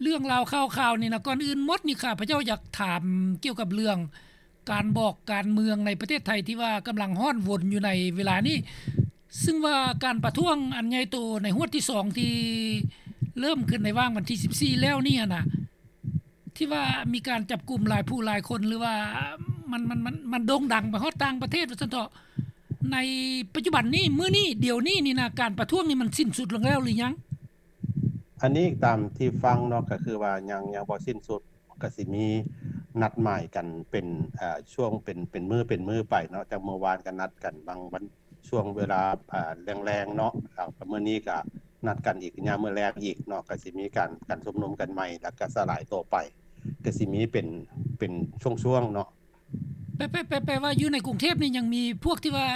ເລື່ອງລາວຂ່າວຄາວນີ້ນະ ກ່ອນອື່ນໝົດນີ້ ຂ້າພະເຈົ້າຢາກຖາມກ່ຽວກັບເລື່ອງການບອກການເມືອງໃນປະເທດໄທ ທີ່ວ່າກຳລັງຮ້ອນວົນຢູ່ໃນເວລານີ້ ຊຶ່ງວ່າການປະທ້ວງອັນໃຫຍ່ໂຕໃນຮວດທີສອງ ທີ່ເລີ່ມຂຶ້ນໃນຫວ່າງວັນທີສິບສີ່ແລ້ວນີ້ຫັ້ນນະ ທີ່ວ່າມີການຈັບກຸມຫຼາຍຜູ້ຫຼາຍຄົນ ຫຼືວ່າມັນ ມັນ ມັນ ມັນໂດ່ງດັງໄປຮອດຕ່າງປະເທດວ່າຊັ້ນເຖາະ ໃນປັດຈຸບັນນີ້ ມື້ນີ້ ດຽວນີ້ນີ້ນະ ການປະທ້ວງນີ້ມັນສິ້ນສຸດລົງແລ້ວຫຼືຍັງ? ອັນນີ້ຕາມທີ່ຟັງເນາະ ກໍຄືວ່າຍັງ ຍັງບໍ່ສິ້ນສຸດ ກໍຊິມີນັດໝາຍກັນເປັນ ເອີ ຊ່ວງເປັນ ເປັນມື້ ເປັນມື້ໄປເນາະ ຈັ່ງເມື່ອວານກໍນັດກັນບາງວັນ ຊ່ວງເວລາ ເອີ ແລງໆເນາະ ແລ້ວກໍມື້ນີ້ກໍນັດກັນອີກຍາມມື້ແລງອີກເນາະ ກໍຊິມີການ ການຊຸມນຸມກັນໃໝ່ ແລ້ວກໍສະຫຼາຍຕົວໄປ ກໍຊິມີເປັນ ເປັນຊ່ວງໆເນາະ. ແປ ແປ ແປ ແປວ່າຢູ່ໃນກຸງເທບນີ້ຍັງມີພວກທີ່ວ່າ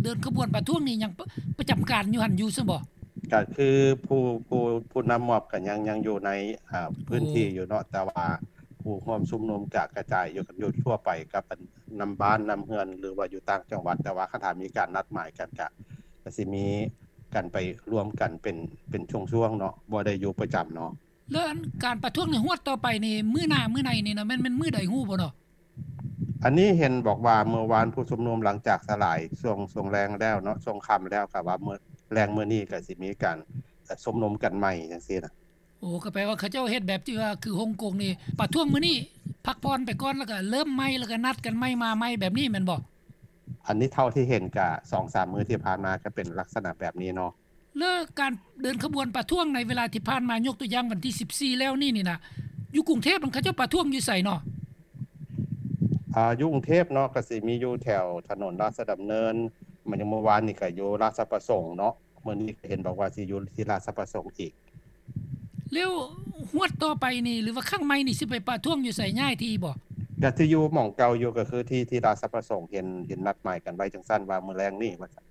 ເດີນຂະບວນປະທ້ວງນີ້ຍັງປະ ປະຈຳການຢູ່ຫັ້ນຢູ່ຊັ້ນບໍ? ກໍຄືຜູ້ ຜູ້ ຜູ້ນຳມອບກໍຍັງ ຍັງຢູ່ໃນ ເອີ ພື້ນທີ່ຢູ່ເນາະ ແຕ່ວ່າຜູ້ຮ່ວມຊຸມນຸມກະກະຈາຍຢູ່ກັນຢູ່ທົ່ວໄປກັບອັນ ນຳບ້ານນຳເຮືອນ ຫຼືວ່າຢູ່ຕ່າງຈັງຫວັດ ແຕ່ວ່າຄັນຖ້າມີການນັດໝາຍກັນກະ ກະຊິມີກັນໄປລວມກັນເປັນ ເປັນຊ່ວງໆເນາະ ບໍ່ໄດ້ຢູ່ປະຈຳເນາະ. ແລ້ວອັນການປະທ້ວງໃນຮວດຕໍ່ໄປນີ້ ມື້ໜ້າມື້ໃນນີ້ນະ ແມ່ນ ແມ່ນມື້ໃດຮູ້ບໍ່ເນາະ? ອັນນີ້ເຫັນບອກວ່າເມື່ອວານຜູ້ຊຸມນຸມຫຼັງຈາກສະຫຼາຍຊ່ວງ ຊ່ວງແລງແລ້ວເນາະ ຊ່ວງຄ່ຳແລ້ວ ກໍວ່າມື້ແລງມື້ນີ້ກໍຊິມີການ ເອີ ຊຸມນຸມກັນໃໝ່ຈັ່ງຊີ້ນະ. ໂອ້ ກໍແປວ່າເຂົາເຈົ້າເຮັດແບບທີ່ວ່າຄືຮົງກົງນີ້ ປະທ້ວງມື້ນີ້ ພັກຜ່ອນໄປກ່ອນ ແລ້ວກໍເລີ່ມໃໝ່ ແລ້ວກໍນັດກັນໃໝ່ ມາໃໝ່ແບບນີ້ແມ່ນບໍ່? ອັນນີ້ເທົ່າທີ່ເຫັນກະສອງສາມມື້ທີ່ຜ່ານມາກໍເປັນລັກສະນະແບບນີ້ເນາະ. ແລ້ວການເດີນຂະບວນປະທ້ວງໃນເວລາທີ່ຜ່ານມາ ຍົກຕົວຢ່າງວັນທີສິບສີ່ແລ້ວນີ້ນີ້ນະ ຢູ່ກຸງເທບມັນເຂົາເຈົ້າປະທ້ວງຢູ່ໃສເນາະ? ອາ ຢູ່ກຸງເທບເນາະ ກໍຊິມີຢູ່ແຖວຖະໜົນລາຊະດຳເນີນ ມາຍັງເມື່ອວານນີ້ກໍຢູ່ລາຊະປະສົງເນາະ ມື້ນີ້ກໍເຫັນບອກວ່າຊິຢູ່ທີ່ລາຊະປະສົງອີກ. ແລ້ວຮວດຕໍ່ໄປນີ້ ຫຼືວ່າຄັ້ງໃໝ່ນີ້ຊິໄປປະທ້ວງຢູ່ໃສ ຍ້າຍທີ່ບໍ່? ກໍຊິຢູ່ໝ່ອງເກົ່າຢູ່ ກໍຄືທີ່ ທີ່ລາຊະປະສົງ ເຫັນ ເຫັນນັດໝາຍກັນໄວ້ຈັ່ງຊັ້ນວ່າມື້ແລງນີ້ວ່າຊັ້ນ.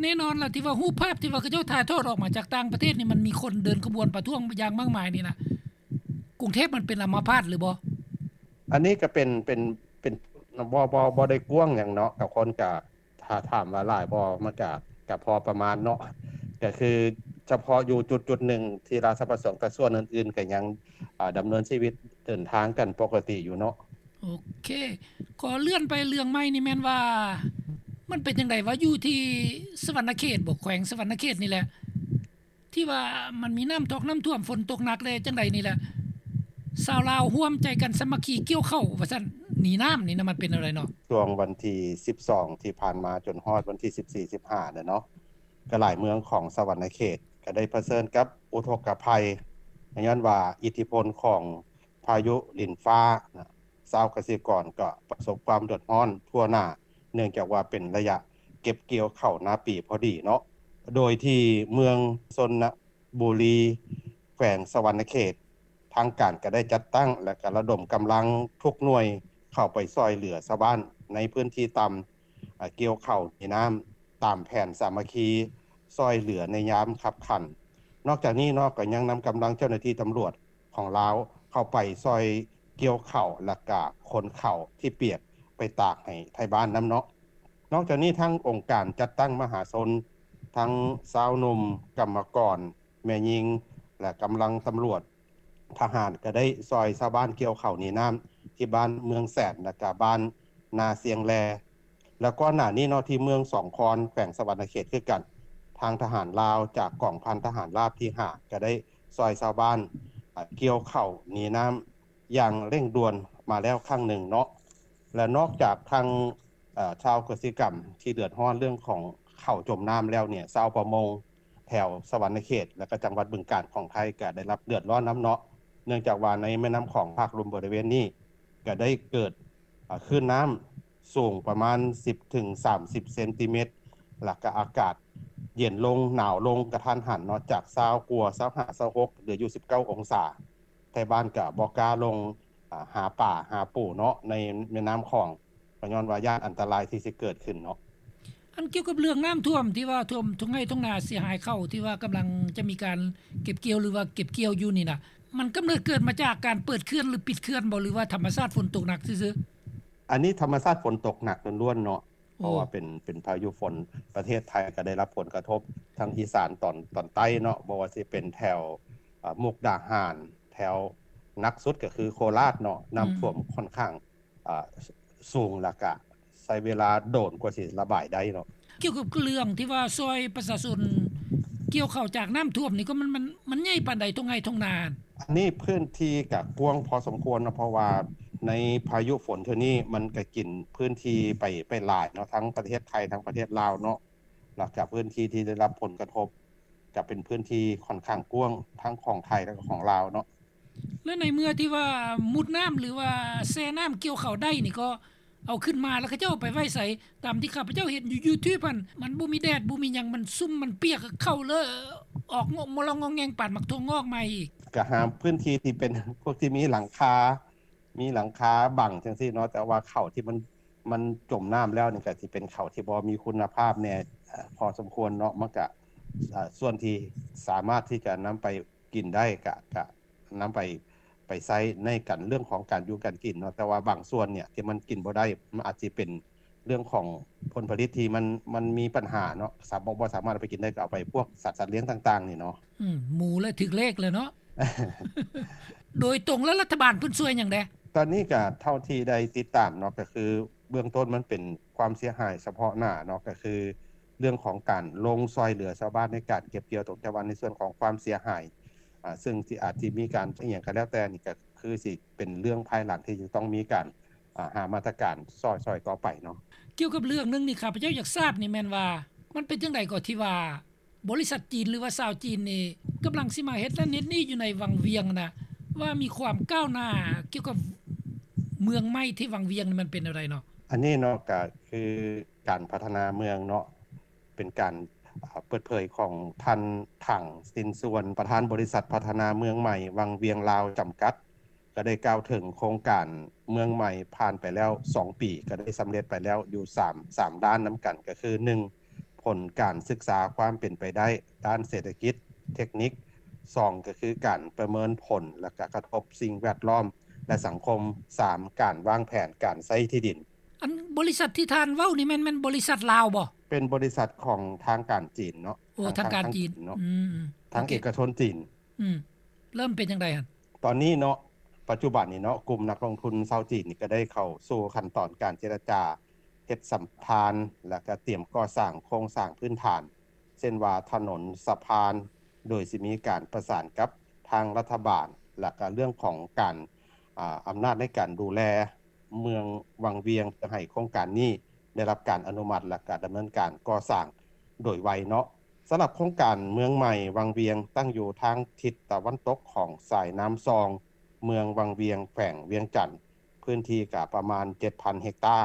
ແນ່ນອນລະ ທີ່ວ່າຮູບພາບທີ່ວ່າເຂົາເຈົ້າຖ່າຍທອດອອກມາຈາກຕ່າງປະເທດນີ້ ມັນມີຄົນເດີນຂະບວນປະທ້ວງຢ່າງມາກມາຍນີ້ນະ ກຸງເທບມັນເປັນອຳມະພາດຫຼືບໍ່? ອັນນີ້ກໍເປັນ ເປັນ ເປັນ ບໍ່ ບໍ່ ບໍ່ໄດ້ກວ້າງຫຍັງເນາະ ກັບຄົນກະ ຖ້າຖາມວ່າຫຼາຍບໍ່ ມັນກະ ກະພໍປະມານເນາະ ກະຄືສະເພາະຢູ່ຈຸດໆໜຶ່ງທີ່ລາຊະປະສົງ ແຕ່ສ່ວນອື່ນໆກໍຍັງ ອາ ດຳເນີນຊີວິດເດີນທາງກັນປົກກະຕິຢູ່ເນາະ. ໂອເຄ ຂໍເລື່ອນໄປເລື່ອງໃໝ່ນີ້ແມ່ນວ່າ ມັນເປັນຈັ່ງໃດວະ ຢູ່ທີ່ສະຫວັນນະເຂດບໍ ແຂວງສະຫວັນນະເຂດນີ້ແຫຼະ ທີ່ວ່າມັນມີນ້ຳຖອກນ້ຳຖ້ວມ ຝົນຕົກໜັກແດ່ຈັ່ງໃດນີ້ແຫຼະ ຊາວລາວຮ່ວມໃຈກັນສາມັກຄີກ່ຽວເຂົ້າວ່າຊັ້ນ ໜີນ້ຳນີ້ນະ ມັນເປັນແນວໃດເນາະ? ຊ່ວງວັນທີສິບສອງທີ່ຜ່ານມາ ຈົນຮອດວັນທີສິບສີ່ ສິບຫ້າແຫຼະເນາະ ກໍຫຼາຍເມືອງຂອງສະຫວັນນະເຂດກໍໄດ້ປະເຊີນກັບອຸທົກກະໄພ ຍ້ອນວ່າອິດທິພົນຂອງພາຍຸລິນຟ້ານະ ຊາວກະສິກອນກໍປະສົບຄວາມເດືອດຮ້ອນທົ່ວໜ້າ ເນື່ອງຈາກວ່າເປັນໄລຍະເກັບກ່ຽວເຂົ້ານາປີພໍດີເນາະ ໂດຍທີ່ເມືອງຊົນນະບູລີ ແຂວງສະຫວັນນະເຂດ ທາງການກໍໄດ້ຈັດຕັ້ງ ແລະ ກະລະດົມກຳລັງທຸກໜ່ວຍເຂົ້າໄປຊ່ອຍເຫຼືອຊາວບ້ານໃນພື້ນທີ່ຕ່ຳ ອາ ກ່ຽວເຂົ້າໜີນ້ຳຕາມແຜນສາມັກຄີຊ່ອຍເຫຼືອໃນຍາມຄັບຂັນ. ນອກຈາກນີ້ເນາະ ກໍຍັງນຳກຳລັງເຈົ້າໜ້າທີ່ຕຳຫຼວດຂອງລາວເຂົ້າໄປຊ່ອຍກ່ຽວເຂົ້າ ແລະ ກະຂົນເຂົ້າທີ່ປຽກໄປຕາກໃຫ້ໄທບ້ານນຳເນາະ. ນອກຈາກນີ້ ທັງອົງການຈັດຕັ້ງມະຫາຊົນ ທັງຊາວໜຸ່ມ, ກຳມະກອນ, ແມ່ຍິງ ແລະ ກຳລັງຕຳຫຼວດ ທະຫານກໍໄດ້ຊ່ອຍຊາວບ້ານກ່ຽວເຂົ້າໜີນ້ຳທີ່ບ້ານເມືອງແສນ ແລະກະບ້ານນາຊຽງແລ ແລະກ່ອນໜ້ານີ້ເນາະ ທີ່ເມືອງສອງຄອນ ແຂວງສະຫວັນນະເຂດຄືກັນ ທາງທະຫານລາວຈາກກອງພັນທະຫານລາບທີຫ້າ ກໍໄດ້ຊ່ອຍຊາວບ້ານ ອາ ກ່ຽວເຂົ້າໜີນ້ຳຢ່າງເລັ່ງດ່ວນມາແລ້ວຄັ້ງໜຶ່ງເນາະ ແລະນອກຈາກທາງ ເອີ ຊາວກະສິກຳທີ່ເດືອດຮ້ອນເລື່ອງຂອງເຂົ້າຈົມນ້ຳແລ້ວເນ່ຍ ຊາວປະມົງແຖວສະຫວັນນະເຂດ ແລະກະຈັງຫວັດບຶງການຂອງໄທກະໄດ້ຮັບເດືອດຮ້ອນນຳເນາະ ເນື່ອງຈາກວ່າໃນແມ່ນ້ຳຂອງພາກລຸ່ມບໍລິເວນນີ້ກະໄດ້ເກີດ ອາ ຄື້ນນ້ຳສູງປະມານສິບເຖິງສາມສິບເຊັນຕີແມັດ ແລະກະອາກາດເຢັນລົງ ໜາວລົງກະທັນຫັນເນາະ ຈາກຊາວກວ່າ ຊາວຫ້າ ຊາວຫົກ ເຫຼືອຢູ່ສິບເກົ້າອົງສາ. ໄທບ້ານກະບໍ່ກ້າລົງ ອາ ຫາປາຫາປູເນາະ ໃນແມ່ນ້ຳຂອງ ກໍຍ້ອນວ່າຢ້ານອັນຕະລາຍທີ່ຊິເກີດຂຶ້ນເນາະ. ອັນກ່ຽວກັບເລື່ອງນ້ຳຖ້ວມທີ່ວ່າຖ້ວມທົ່ງໄຮ່ທົ່ງນາເສຍຫາຍເຂົ້າ ທີ່ວ່າກຳລັງຈະມີການເກັບກ່ຽວ ຫຼືວ່າເກັບກ່ຽວຢູ່ນີ້ນະ ມັນກຳເນີດເກີດມາຈາກການເປີດເຂື່ອນ ຫຼື ປິດເຂື່ອນບໍ່ ຫຼືວ່າທຳມະຊາດຝົນຕົກໜັກຊື່ໆ? ອັນນີ້ທຳມະຊາດຝົນຕົກໜັກລ້ວນໆເນາະ ເພາະວ່າເປັນ ເປັນພາຍຸຝົນ ປະເທດໄທກໍໄດ້ຮັບຜົນກະທົບ ທັງອີສານຕອນ ຕອນໃຕ້ເນາະ ບໍ່ວ່າຊິເປັນແຖວ ອາ ມຸກດາຫານ ແຖວ ໜັກສຸດກໍຄືໂຄລາດເນາະ ນ້ຳຖ້ວມ ອືມ ຂ້ອນຂ້າງ ອ່າ ສ- ສູງ ແລ້ວກະໃຊ້ເວລາດົນກວ່າຊິລະບາຍໄດ້ເນາະ. ກ່ຽວກັບເລື່ອງທີ່ວ່າຊ່ອຍປະຊາຊົນກ່ຽວເຂົ້າຈາກນ້ຳຖ້ວມນີ້ ກໍມັນ ມັນ ມັນໃຫຍ່ປານໃດ ທົ່ງໄຮ່ທົ່ງນາ? ອັນນີ້ພື້ນທີ່ກະກວ້າງພໍສົມຄວນເນາະ ເພາະວ່າໃນພາຍຸຝົນເທື່ອນີ້ ມັນກະກິນພື້ນທີ່ໄປ ໄປຫຼາຍເນາະ ທັງປະເທດໄທ ທັງປະເທດລາວເນາະ ແລ້ວກະພື້ນທີ່ທີ່ໄດ້ຮັບຜົນກະທົບ ກະເປັນພື້ນທີ່ຂ້ອນຂ້າງກວ້າງ ທັງຂອງໄທ ແລະ ຂອງລາວເນາະ. ແລະ ໃນເມື່ອທີ່ວ່າມຸດນ້ຳ ຫຼືວ່າແຊ່ນ້ຳກ່ຽວເຂົ້າໄດ້ນີ້ ກໍເອົາຂຶ້ນມາ ແລ້ວເຂົາເຈົ້າເອົາໄປໄວ້ໃສ? ຕາມທີ່ຂ້າພະເຈົ້າເຫັນຢູ່ຢູທູບຫັ້ນ ມັນບໍ່ມີແດດ ບໍ່ມີຫຍັງ ມັນຊຸ່ມ ມັນປຽກ ເຂົ້າເລີຍອອກງອກງອແງງ ປານໝາກຖົ່ວງອກໃໝ່ອີກ. ກະຫາພື້ນທີ່ທີ່ເປັນພວກທີ່ມີຫຼັງຄາ ມີຫຼັງຄາບັງຈັ່ງຊີ້ເນາະ ແຕ່ວ່າເຂົ້າທີ່ມັນ ມັນຈົມນ້ຳແລ້ວນີ້ ກະຊິເປັນເຂົ້າທີ່ບໍ່ມີຄຸນນະພາບແດ່ ເອີ ພໍສົມຄວນເນາະ ມັນກະ ເອີ ສ່ວນທີ່ສາມາດທີ່ຈະນຳໄປກິນໄດ້ ກະ ກະນຳໄປ ໄປໃຊ້ໃນການ ເລື່ອງຂອງການຢູ່ການກິນເນາະ ແຕ່ວ່າບາງສ່ວນເນີ້ຍທີ່ມັນກິນບໍ່ໄດ້ ມັນອາດຊິເປັນເລື່ອງຂອງຜົນຜະລິດທີ່ມັນ ມັນມີບັນຫາເນາະ ສາ ບໍ່ ບໍ່ສາມາດເອົາໄປກິນໄດ້ ກໍເອົາໄປພວກສັດ ສັດລ້ຽງຕ່າງໆນີ້ເນາະ. ອືມ ໝູແລ້ວຖືກເລກແລ້ວເນາະ. ໂດຍຕົງແລ້ວລັດຖະບານເພິ່ນຊ່ວຍຫຍັງແດ່? ຕອນນີ້ກະເທົ່າທີ່ໄດ້ຕິດຕາມເນາະ ກະຄືເບື້ອງຕົ້ນມັນເປັນຄວາມເສຍຫາຍສະເພາະໜ້າເນາະ ກະຄືເລື່ອງຂອງການລົງຊ່ອຍເຫຼືອຊາວບ້ານໃນການເກັບກ່ຽວຕົງ ແຕ່ວ່າໃນສ່ວນຂອງຄວາມເສຍຫາຍ ອາ ເຊິ່ງຊິອາດຊິມີການອີ່ຫຍັງກະແລ້ວແຕ່ນີ້ ກະຄືຊິເປັນເລື່ອງພາຍຫຼັງທີ່ຈະຕ້ອງມີການ ອາ ຫາມາດຕະການຊ່ອຍ ຊ່ອຍຕໍ່ໄປເນາະ. ກ່ຽວກັບເລື່ອງໜຶ່ງນີ້ ຂ້າພະເຈົ້າຢາກຊາບນີ້ແມ່ນວ່າ ມັນເປັນຈັ່ງໃດກໍທີ່ວ່າ ບໍລິສັດຈີນ ຫຼືວ່າຊາວຈີນນີ້ ກຳລັງຊິມາເຮັດນັ້ນເຮັດນີ້ຢູ່ໃນວັງວຽງນະ ວ່າມີຄວາມກ້າວໜ້າກ່ຽວກັບເມືອງໃໝ່ທີ່ວັງວຽງນີ້ ມັນເປັນແນວໃດເນາະ? ອັນນີ້ເນາະ ກະຄືການພັດທະນາເມືອງເນາະ ເປັນການ ອາ ເປີດເຜີຍຂອງທ່ານ ຖັງ ຊິນຊວນ ປະທານບໍລິສັດພັດທະນາເມືອງໃໝ່ວັງວຽງລາວຈຳກັດ ກໍໄດ້ກ່າວເຖິງໂຄງການເມືອງໃໝ່ຜ່ານໄປແລ້ວສອງປີ ກໍໄດ້ສຳເລັດໄປແລ້ວຢູ່ສາມ ສາມດ້ານນຳກັນ ກໍຄື ໜຶ່ງ ຜົນການສຶກສາຄວາມເປັນໄປໄດ້ດ້ານເສດຖະກິດ ເທັກນິກ, ສອງ ກໍຄືການປະເມີນຜົນ ແລະ ກະກະທົບສິ່ງແວດລ້ອມ ແລະ ສັງຄົມ, ສາມ ການວາງແຜນການໃຊ້ທີ່ດິນ. ອັນບໍລິສັດທີ່ທ່ານເວົ້ານີ້ແມ່ນ ແມ່ນບໍລິສັດລາວບໍ່? ເປັນບໍລິສັດຂອງທາງການຈີນເນາະ. ໂອ້ ທາງ ທາງການຈີນເນາະ. ອືມ ທາງເອກະຊົນຈີນ. ອືມ ເລີ່ມເປັນຈັ່ງໃດຫັ້ນ? ຕອນນີ້ເນາະ ປັດຈຸບັນນີ້ເນາະ ກຸ່ມນັກລົງທຶນຊາວຈີນນີ້ກໍໄດ້ເຂົ້າສູ່ຂັ້ນຕອນການເຈລະຈາເຮັດສຳປະທານ ແລະ ກະຕຽມກໍ່ສ້າງໂຄງສ້າງພື້ນຖານ ເຊັ່ນວ່າຖະໜົນ, ສະພານ ໂດຍຊິມີການປະສານກັບທາງລັດຖະບານ ແລະ ກະເລື່ອງຂອງການ ອາ ອຳນາດໃນການດູແລເມືອງວັງວຽງ ເພື່ອໃຫ້ໂຄງການນີ້ ໄດ້ຮັບການອະນຸມັດ ແລະ ກະດຳເນີນການກໍ່ສ້າງໂດຍໄວເນາະ. ສຳລັບໂຄງການເມືອງໃໝ່ວັງວຽງ ຕັ້ງຢູ່ທາງທິດຕາເວັນຕົກຂອງສາຍນ້ຳຊອງ ເມືອງວັງວຽງ ແຂວງວຽງຈັນ, ພື້ນທີ່ກະປະມານເຈັດພັນເຮັກຕາ,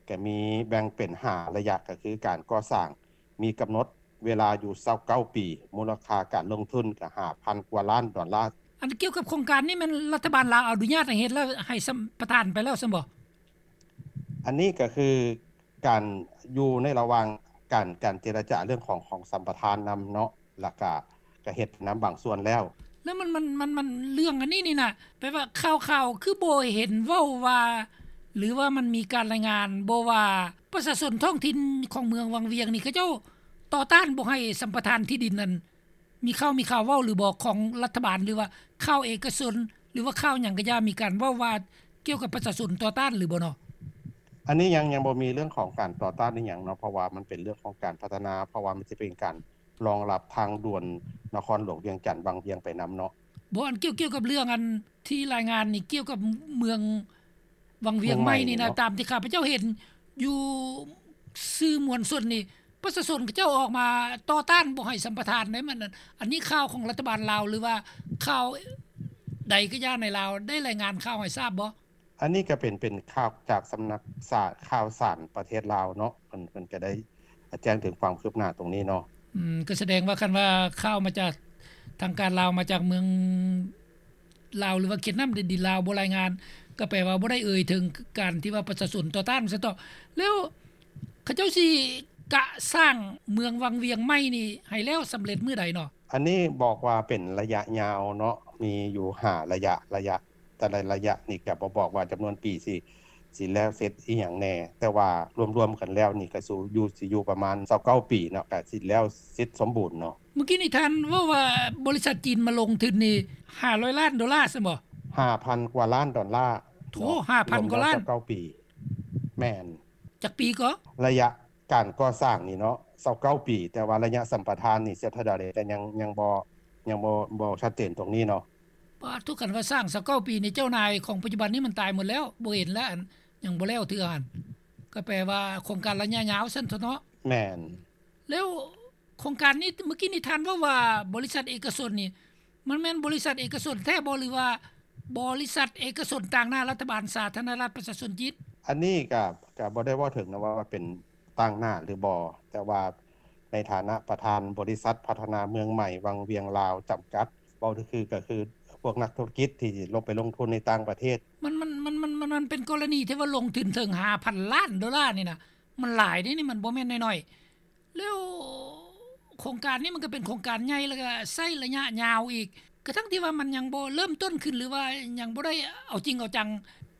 ກະມີແບ່ງເປັນຫ້າໄລຍະ ກະຄືການກໍ່ສ້າງ ມີກຳນົດເວລາຢູ່ຊາວເກົ້າປີ, ມູນລະຄ່າການລົງທຶນກະຫ້າພັນກວ່າລ້ານດອນລາ. ອັນກ່ຽວກັບໂຄງການນີ້ ແມ່ນລັດຖະບານລາວອະນຸຍາດໃຫ້ເຮັດ ແລ້ວໃຫ້ສຳປະທານໄປແລ້ວຊັ້ນບໍ່? ອັນນີ້ກະຄືການຢູ່ໃນລະຫວ່າງການ ການເຈລະຈາເລື່ອງຂອງ ຂອງສຳປະທານນຳເນາະ ແລ້ວກະ ກະເຮັດນຳບາງສ່ວນແລ້ວ. ແລ້ວມັນ ມັນ ມັນ ມັນ ເລື່ອງອັນນີ້ນີ້ນະ ແປວ່າຂ່າວໆຄືບໍ່ເຫັນເວົ້າວ່າ ຫຼືວ່າມັນມີການລາຍງານບໍ່ວ່າ ປະຊາຊົນທ້ອງຖິ່ນຂອງເມືອງວັງວຽງນີ້ ເຂົາເຈົ້າຕໍ່ຕ້ານບໍ່ໃຫ້ສຳປະທານທີ່ດິນນັ້ນ ມີຂ່າວ ມີຂ່າວເວົ້າຫຼືບໍ່ຂອງລັດຖະບານ ຫຼືວ່າຂ່າວເອກະຊົນ ຫຼືວ່າຂ່າວຫຍັງກະຢ່າ ມີການເວົ້າວ່າກ່ຽວກັບປະຊາຊົນຕໍ່ຕ້ານຫຼືບໍ່ເນາະ? ອັນນີ້ຍັງ ຍັງບໍ່ມີເລື່ອງຂອງການຕໍ່ຕ້ານອີ່ຫຍັງເນາະ ເພາະວ່າມັນເປັນເລື່ອງຂອງການພັດທະນາ ເພາະວ່າມັນຈະເປັນການ ລອງລັບທາງດ່ວນນະຄອນຫຼວງວຽງຈັນວັງວຽງໄປນຳເນາະ. ບໍ່ ອັນກ່ຽວ ກ່ຽວກັບເລື່ອງອັນທີ່ລາຍງານນີ້ ກ່ຽວກັບເມືອງວັງວຽງໃໝ່ນີ້ນະ ເມືອງໃໝ່ນີ້ເນາະ ຕາມທີ່ຂ້າພະເຈົ້າເຫັນຢູ່ສື່ມວນຊົນນີ້ ປະຊາຊົນເຂົາເຈົ້າອອກມາຕໍ່ຕ້ານບໍ່ໃຫ້ສຳປະທານໃດ໋ ມັນ ອັນນີ້ຂ່າວຂອງລັດຖະບານລາວ ຫຼືວ່າຂ່າວໃດກະຢ່າໃນລາວ ໄດ້ລາຍງານຂ່າວໃຫ້ຊາບບໍ່? ອັນນີ້ກະເປັນ ເປັນຂ່າວຈາກສຳນັກສານ ຂ່າວສານປະເທດລາວເນາະ ເພິ່ນ ເພິ່ນກະໄດ້ແຈ້ງເຖິງຄວາມຄືບໜ້າຕົງນີ້ເນາະ. ອືມ ກະສະແດງວ່າຄັນວ່າຂ່າວມາຈາກທາງການລາວ ມາຈາກເມືອງລາວ ຫຼືວ່າເຂດນ້ຳແດນດິນລາວບໍ່ລາຍງານ ກະແປວ່າບໍ່ໄດ້ເອີ່ຍເຖິງການທີ່ວ່າປະຊາຊົນຕໍ່ຕ້ານຊັ້ນເທາະ. ແລ້ວເຂົາເຈົ້າຊິກະສ້າງເມືອງວັງວຽງໃໝ່ນີ້ໃຫ້ແລ້ວສຳເລັດມື້ໃດເນາະ? ອັນນີ້ບອກວ່າເປັນໄລຍະຍາວເນາະ ມີຢູ່ຫ້າໄລຍະ ໄລຍະ ແຕ່ລະໄລຍະນີ້ກະບໍ່ບອກວ່າຈຳນວນປີຊິ ຊິແລ້ວເສັດອີ່ຫຍັງແດ່ ແຕ່ວ່າລວມໆກັນແລ້ວນີ້ກະຊິຢູ່ ຊິຢູ່ປະມານຊາວເກົ້າປີເນາະ ກະຊິແລ້ວເສັດສົມບູນເນາະ. ມື້ກີ້ນີ້ທ່ານເວົ້າວ່າບໍລິສັດຈີນມາລົງທຶນນີ້ຫ້າຮ້ອຍລ້ານໂດລາຊັ້ນບໍ່? ຫ້າພັນກວ່າລ້ານດອນລາ. ໂອ້ ເນາະ ຫ້າພັນກວ່າລ້ານ ລວມແລ້ວຊາວເກົ້າປີ. ແມ່ນ. ຈັກປີກໍ? ໄລຍະການກໍ່ສ້າງນີ້ເນາະ ຊາວເກົ້າປີ, ແຕ່ວ່າໄລຍະສຳປະທານນີ້ເສຍເທົ່າໃດ ແຕ່ຍັງ ຍັງບໍ່ ຍັງບໍ່ ບໍ່ຊັດເຈນຕົງນີ້ເນາະ. ປາດໂທ້ ຄັນວ່າສ້າງຊາວເກົ້າປີນີ້ ເຈົ້ານາຍຂອງປັດຈຸບັນນີ້ມັນຕາຍໝົດແລ້ວ ບໍ່ເຫັນແລ້ວ ອັນ ຍັງບໍ່ແລ້ວເທື່ອຫັ້ນ. ກໍແປວ່າໂຄງການໄລຍະຍາວຊັ້ນເຖາະເນາະ. ແມ່ນ. ແລ້ວໂຄງການນີ້ ເມື່ອກີ້ນີ້ທ່ານເວົ້າວ່າບໍລິສັດເອກະຊົນນີ້ ມັນແມ່ນບໍລິສັດເອກະຊົນແທ້ບໍ່ ຫຼືວ່າບໍລິສັດເອກະຊົນຕາງໜ້າລັດຖະບານສາທາລະນະລັດປະຊາຊົນຈີນ? ອັນນີ້ກໍ ກໍບໍ່ໄດ້ເວົ້າເຖິງນະວ່າເປັນຕາງໜ້າຫຼືບໍ່, ແຕ່ວ່າໃນຖານະປະທານບໍລິສັດພັດທະນາເມືອງໃໝ່ວັງວຽງລາວຈຳກັດ ເວົ້າຄື ກໍຄືພວກນັກທຸລະກິດທີ່ລົງໄປລົງທຶນໃນຕ່າງປະເທດ. ມັນ ມັນ ມັນ ມັນ ມັນ ມັນເປັນກໍລະນີທີ່ວ່າລົງທຶນເຖິງຫ້າພັນລ້ານໂດລານີ້ນະ ມັນຫຼາຍເດ້ນີ້ ມັນບໍ່ແມ່ນນ້ອຍໆ. ແລ້ວໂຄງການນີ້ມັນກໍເປັນໂຄງການໃຫຍ່ ແລ້ວກໍໃຊ້ໄລຍະຍາວອີກ ກະທັ່ງທີ່ວ່າມັນຍັງບໍ່ເລີ່ມຕົ້ນຂຶ້ນ ຫຼືວ່າຍັງບໍ່ໄດ້ເອົາຈິງເອົາຈັງ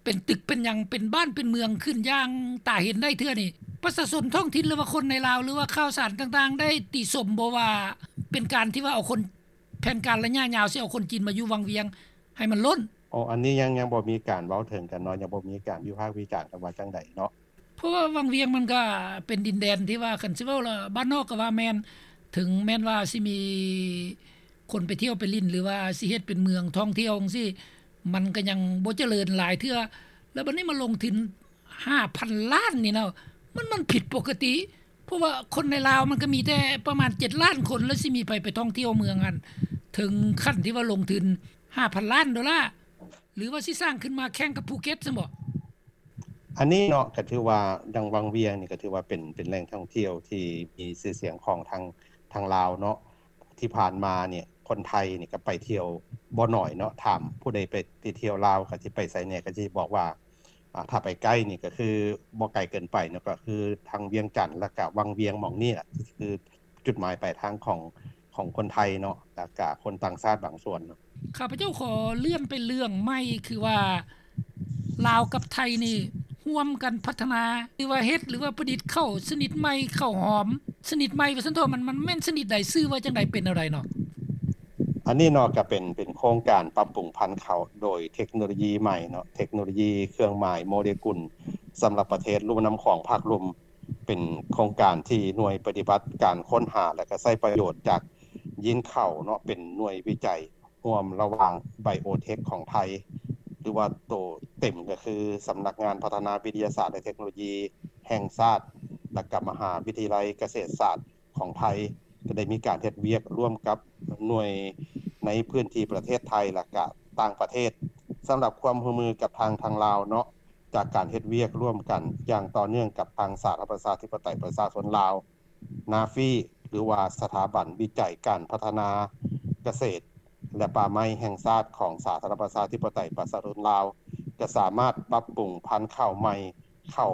ເປັນຕຶກເປັນຫຍັງ ເປັນບ້ານເປັນເມືອງຂຶ້ນຢ່າງຕາເຫັນໄດ້ເທື່ອນີ້ ປະຊາຊົນທ້ອງຖິ່ນ ຫຼືວ່າຄົນໃນລາວ ຫຼືວ່າຂ່າວສານຕ່າງໆ ໄດ້ຕິຊົມບໍ່ວ່າເປັນການທີ່ວ່າເອົາຄົນ ແຜນການໄລຍະຍາວຊິເອົາຄົນຈີນມາຢູ່ວັງວຽງໃຫ້ມັນລົ້ນ? ອໍ ອັນນີ້ຍັງ ຍັງບໍ່ມີການເວົ້າເຖິງກັນເນາະ ຍັງບໍ່ມີການວິພາກວິຈານກັນວ່າຈັ່ງໃດເນາະ. ເພາະວ່າວັງວຽງມັນກໍເປັນດິນແດນທີ່ວ່າ ຄັນຊິເວົ້າລະ ບ້ານນອກກໍວ່າແມ່ນ ເຖິງແມ່ນວ່າຊິມີຄົນໄປທ່ຽວໄປຫຼິ້ນ ຫຼືວ່າຊິເຮັດເປັນເມືອງທ່ອງທ່ຽວຈັ່ງຊີ້ ມັນກໍຍັງບໍ່ຈະເລີນຫຼາຍເທື່ອ. ແລ້ວບັດນີ້ມາລົງທຶນຫ້າພັນລ້ານນີ້ນະ ມັນ ມັນຜິດປົກກະຕິ ເພາະວ່າຄົນໃນລາວມັນກໍມີແຕ່ປະມານເຈັດລ້ານຄົນ ແລ້ວຊິມີໃຜໄປທ່ອງທ່ຽວເມືອງຫັ້ນ ເຖິງຂັ້ນທີ່ວ່າລົງທຶນຫ້າພັນລ້ານໂດລາ ຫຼືວ່າຊິສ້າງຂຶ້ນມາແຂ່ງກັບພູເກັດຊັ້ນບໍ? ອັນນີ້ເນາະ ກໍຖືວ່າດັ່ງວັງວຽງນີ້ ກໍຖືວ່າເປັນ ເປັນແຫຼ່ງທ່ອງທ່ຽວທີ່ມີຊື່ສຽງຂອງທາງ ທາງລາວເນາະ. ທີ່ຜ່ານມານີ້ ຄົນໄທນີ້ກໍໄປທ່ຽວບໍ່ໜ້ອຍເນາະ. ຖາມຜູ້ໃດໄປ ໄປທ່ຽວລາວ ກໍຊິໄປໃສແດ່ ກໍຊິບອກວ່າ ອາ ຖ້າໄປໃກ້ນີ້ ກໍຄືບໍ່ໄກເກີນໄປເນາະ ກໍຄືທາງວຽງຈັນ ແລ້ວກໍວັງວຽງ ໝ່ອງນີ້ລະ ຄືຈຸດໝາຍປາຍທາງຂອງ ຂອງຄົນໄທເນາະ ແລ້ວກະຄົນຕ່າງຊາດບາງສ່ວນເນາະ. ຂ້າພະເຈົ້າຂໍເລື່ອນໄປເລື່ອງໃໝ່ ຄືວ່າລາວກັບໄທນີ້ຮ່ວມກັນພັດທະນາ ຫຼືວ່າເຮັດ ຫຼືວ່າປະດິດເຂົ້າຊະນິດໃໝ່ ເຂົ້າຫອມຊະນິດໃໝ່ວ່າຊັ້ນເຖາະ ມັນ ມັນແມ່ນຊະນິດໃດ ຊື່ວ່າຈັ່ງໃດ ເປັນແນວໃດເນາະ? ອັນນີ້ເນາະ ກະເປັນ ເປັນໂຄງການປັບປຸງພັນເຂົ້າໂດຍເທັກໂນໂລຢີໃໝ່ເນາະ ເທັກໂນໂລຢີເຄື່ອງໝາຍໂມເລກຸນ ສຳລັບປະເທດລຸ່ມນ້ຳຂອງພາກລຸ່ມ. ເປັນໂຄງການທີ່ໜ່ວຍປະຕິບັດການຄົ້ນຫາ ແລະ ກະໃຊ້ປະໂຫຍດຈາກຢີນເຂົ້າເນາະ ເປັນໜ່ວຍວິໄຈຮ່ວມລະຫວ່າງໄບໂອເທັກຂອງໄທ ຫຼືວ່າໂຕເຕັມກໍຄືສຳນັກງານພັດທະນາວິທະຍາສາດ ແລະ ເທັກໂນໂລຢີແຫ່ງຊາດ ແລະ ກະມະຫາວິທະຍາໄລກະເສດສາດຂອງໄທ ກໍໄດ້ມີການເຮັດວຽກຮ່ວມກັບໜ່ວຍໃນພື້ນທີ່ປະເທດໄທ ແລະ ກະຕ່າງປະເທດ. ສຳລັບຄວາມຮ່ວມມືກັບທາງ ທາງລາວເນາະ ຈາກການເຮັດວຽກຮ່ວມກັນຢ່າງຕໍ່ເນື່ອງກັບທາງສາທາລະນະລັດປະຊາທິປະໄຕປະຊາຊົນລາວ ນາຟີ ຫຼືວ່າສະຖາບັນວິໄຈການພັດທະນາກະເສດ ແລະ ປ່າໄມ້ແຫ່ງຊາດຂອງສາທາລະນະລັດປະຊາທິປະໄຕປະຊາຊົນລາວ ຈະສາມາດປັບປຸງພັນເຂົ້າໃໝ່ ເຂົ້າ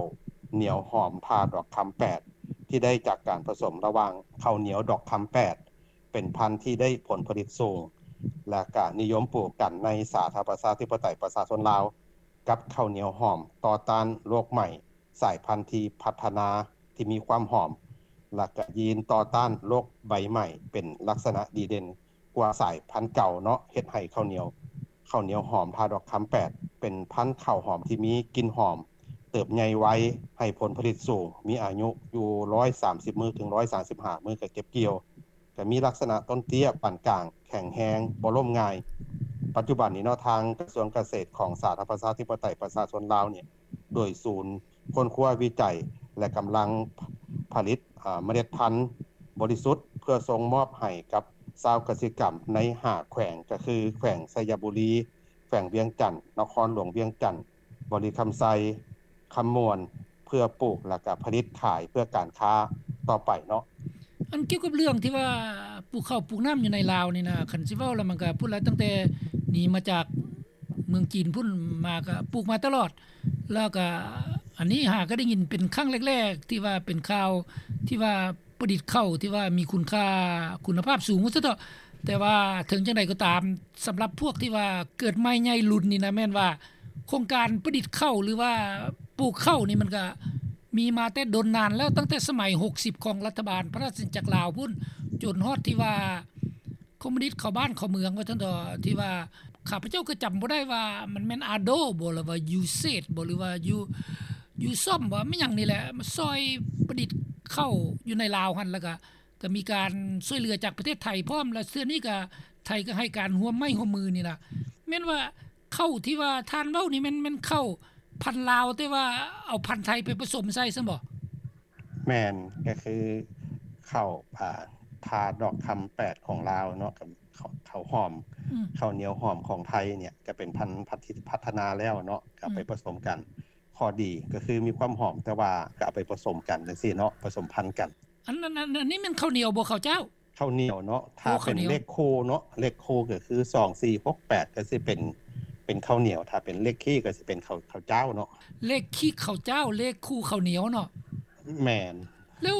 ໜຽວຫອມທ່າດອກຄຳແປດ ທີ່ໄດ້ຈາກການປະສົມລະຫວ່າງເຂົ້າໜຽວດອກຄຳແປດ ເປັນພັນທີ່ໄດ້ຜົນຜະລິດສູງ ແລະ ກະນິຍົມປູກກັນໃນສາທາລະນະລັດປະຊາທິປະໄຕປະຊາຊົນລາວ ກັບເຂົ້າໜຽວຫອມຕໍ່ຕ້ານໂລກໃໝ່ ສາຍພັນທີ່ພັດທະນາທີ່ມີຄວາມຫອມ ແລະ ກະຢີນຕໍ່ຕ້ານໂລກໃບໃໝ່ ເປັນລັກສະນະດີເດັ່ນກວ່າສາຍພັນເກົ່າເນາະ ເຮັດໃຫ້ເຂົ້າໜຽວ ເຂົ້າໜຽວຫອມທ່າດອກຄຳແປດ ເປັນພັນເຂົ້າຫອມທີ່ມີກິ່ນຫອມ ເຕີບໃຫຍ່ໄວ ໃຫ້ຜົນຜະລິດສູງ ມີອາຍຸຢູ່ຮ້ອຍສາມສິບມື້ເຖິງຮ້ອຍສາມສິບຫ້າມື້ກໍເກັບກ່ຽວ. ກໍມີລັກສະນະຕົ້ນເຕ້ຍປານກາງ ແຂງແຮງ ບໍ່ລົ້ມງ່າຍ. ປັດຈຸບັນນີ້ເນາະ ທາງກະຊວງກະເສດຂອງສາທາລະນະລັດປະຊາທິປະໄຕປະຊາຊົນລາວນີ້ ໂດຍສູນຄົ້ນຄວ້າວິໄຈ ແລະ ກຳລັງຜະລິດ ອາ ເມລັດພັນບໍລິສຸດ ເພື່ອສົ່ງມອບໃຫ້ກັບຊາວກະສິກຳໃນຫ້າແຂວງ ກໍຄືແຂວງໄຊຍະບູລີ, ແຂວງວຽງຈັນ, ນະຄອນຫຼວງວຽງຈັນ, ບໍລິຄຳໄຊ, ຄຳມ່ວນ ເພື່ອປູກ ແລ້ວກະຜະລິດຂາຍເພື່ອການຄ້າຕໍ່ໄປເນາະ. ອັນກ່ຽວກັບເລື່ອງທີ່ວ່າປູກເຂົ້າປູກນ້ຳຢູ່ໃນລາວນີ້ນະ ຄັນຊິເວົ້າແລ້ວມັນກະພຸ້ນລະ ຕັ້ງແຕ່ໜີມາຈາກເມືອງຈີນພຸ້ນມາກະປູກມາຕະຫຼອດ ແລ້ວກະອັນນີ້ຫາກະໄດ້ຍິນເປັນຄັ້ງແລກໆ ທີ່ວ່າເປັນຂ່າວທີ່ວ່າ ປະດິດເຂົ້າທີ່ວ່າມີຄຸນຄ່າ ຄຸນນະພາບສູງວ່າຊັ້ນເຖາະ. ແຕ່ວ່າເຖິງຈັ່ງໃດກໍຕາມ ສຳລັບພວກທີ່ວ່າເກີດໃໝ່ໃຫຍ່ລຸ້ນນີ້ນະ ແມ່ນວ່າໂຄງການປະດິດເຂົ້າ ຫຼືວ່າປູກເຂົ້ານີ້ ມັນກະມີມາແຕ່ດົນນານແລ້ວ ຕັ້ງແຕ່ສະໄໝຫົກສິບຂອງລັດຖະບານພະລາຊະອານາຈັກລາວພຸ້ນ ຈົນຮອດທີ່ວ່າ ຄອມມູນິດເຂົ້າບ້ານເຂົ້າເມືອງວ່າຊັ້ນເຖາະ ທີ່ວ່າ ຂ້າພະເຈົ້າກໍຈຳບໍ່ໄດ້ວ່າມັນແມ່ນ ອາໂດ ບໍ່ ຫຼືວ່າ ຢູເຊດ ບໍ່ ຫຼືວ່າ ຢູ ຢູຊອມ ບໍ່ ມີຫຍັງນີ້ແຫຼະ ມາຊ່ອຍປະດິດເຂົ້າຢູ່ໃນລາວຫັ້ນ ແລ້ວກໍ ກໍມີການຊ່ວຍເຫຼືອຈາກປະເທດໄທພ້ອມ ແລະ ເທື່ອນີ້ກໍ ໄທກໍໃຫ້ການຮ່ວມໄມ້ຮ່ວມມືນີ້ນະ. ແມ່ນວ່າເຂົ້າທີ່ວ່າທ່ານເວົ້ານີ້ແມ່ນ ແມ່ນເຂົ້າພັນລາວ ແຕ່ວ່າເອົາພັນໄທໄປປະສົມໃສ່ຊັ້ນບໍ່? ແມ່ນ ກໍຄືເຂົ້າ ອ່າ ທ່າດອກຄຳແປດຂອງລາວເນາະ ກັບເຂົ້າ ເຂົ້າຫອມ ອືມ ເຂົ້າໜຽວຫອມຂອງໄທນີ້ ກໍເປັນພັນ ພັດ ທີ່ພັດທະນາແລ້ວເນາະ ກໍເອົາໄປ ອືມ ປະສົມກັນ. ຂໍ້ດີກໍຄືມີຄວາມຫອມ ແຕ່ວ່າກໍເອົາໄປປະສົມກັນຈັ່ງຊີ້ເນາະ ປະສົມພັນກັນ. ອັນ ອັນ ອັນ ອັນນີ້ແມ່ນເຂົ້າໜຽວບໍ່ ເຂົ້າເຈົ້າ? ເຂົ້າໜຽວເນາະ ຖ້າ ໂອ້ ເປັນເຂົ້າໜຽວ ເລກຄູ່ເນາະ ເລກຄູ່ກໍຄື ສອງ ສີ່ ຫົກ ແປດ ກໍຊິເປັນ ເປັນເຂົ້າໜຽວ ຖ້າເປັນເລກຄີກໍຊິເປັນເຂົ້າ ເຂົ້າເຈົ້າເນາະ. ເລກຄີເຂົ້າເຈົ້າ ເລກຄູ່ເຂົ້າໜຽວເນາະ. ແມ່ນ. ແລ້ວ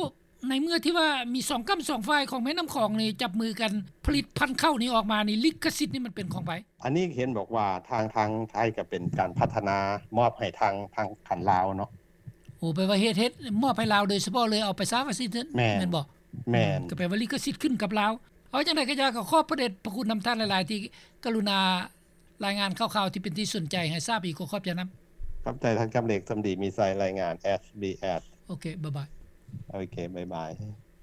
ໃນເມື່ອທີ່ວ່າມີສອງກ້ຳສອງຝ່າຍຂອງແມ່ນ້ຳຂອງນີ້ຈັບມືກັນຜະລິດພັນເຂົ້ານີ້ອອກມານີ້ ລິຂະສິດນີ້ມັນເປັນຂອງໃຜ? ອັນນີ້ເຫັນບອກວ່າທາງ ທາງໄທກໍເປັນການພັດທະນາມອບໃຫ້ທາງ ທາງການລາວເນາະ. ໂອ້ ແປວ່າເຮັດ ເຮັດມອບໃຫ້ລາວໂດຍສະເພາະເລີຍ ເອົາໄປຊະວ່າຊັ້ນເຖາະ. ແມ່ນ ແມ່ນບໍ່? ແມ່ນ ອືມ ກໍແປວ່າລິຂະສິດຂຶ້ນກັບລາວ. ເອົາຈັ່ງໃດກໍຢ່າ ກໍຂອບພະເດດພະຄຸນນຳທ່ານຫຼາຍໆ ທີ່ກະລຸນາລາຍງານຂ່າວໆ ທີ່ເປັນທີ່ສົນໃຈໃຫ້ຊາບອີກ. ກໍຂອບໃຈນຳ. ຂອບໃຈທ່ານຄຳເລັກ ສຳດີມີໄຊ ລາຍງານ ເອສບີເອສ. ໂອເຄ ບາຍບາຍ. ໂອເຄ ບາຍບາຍ.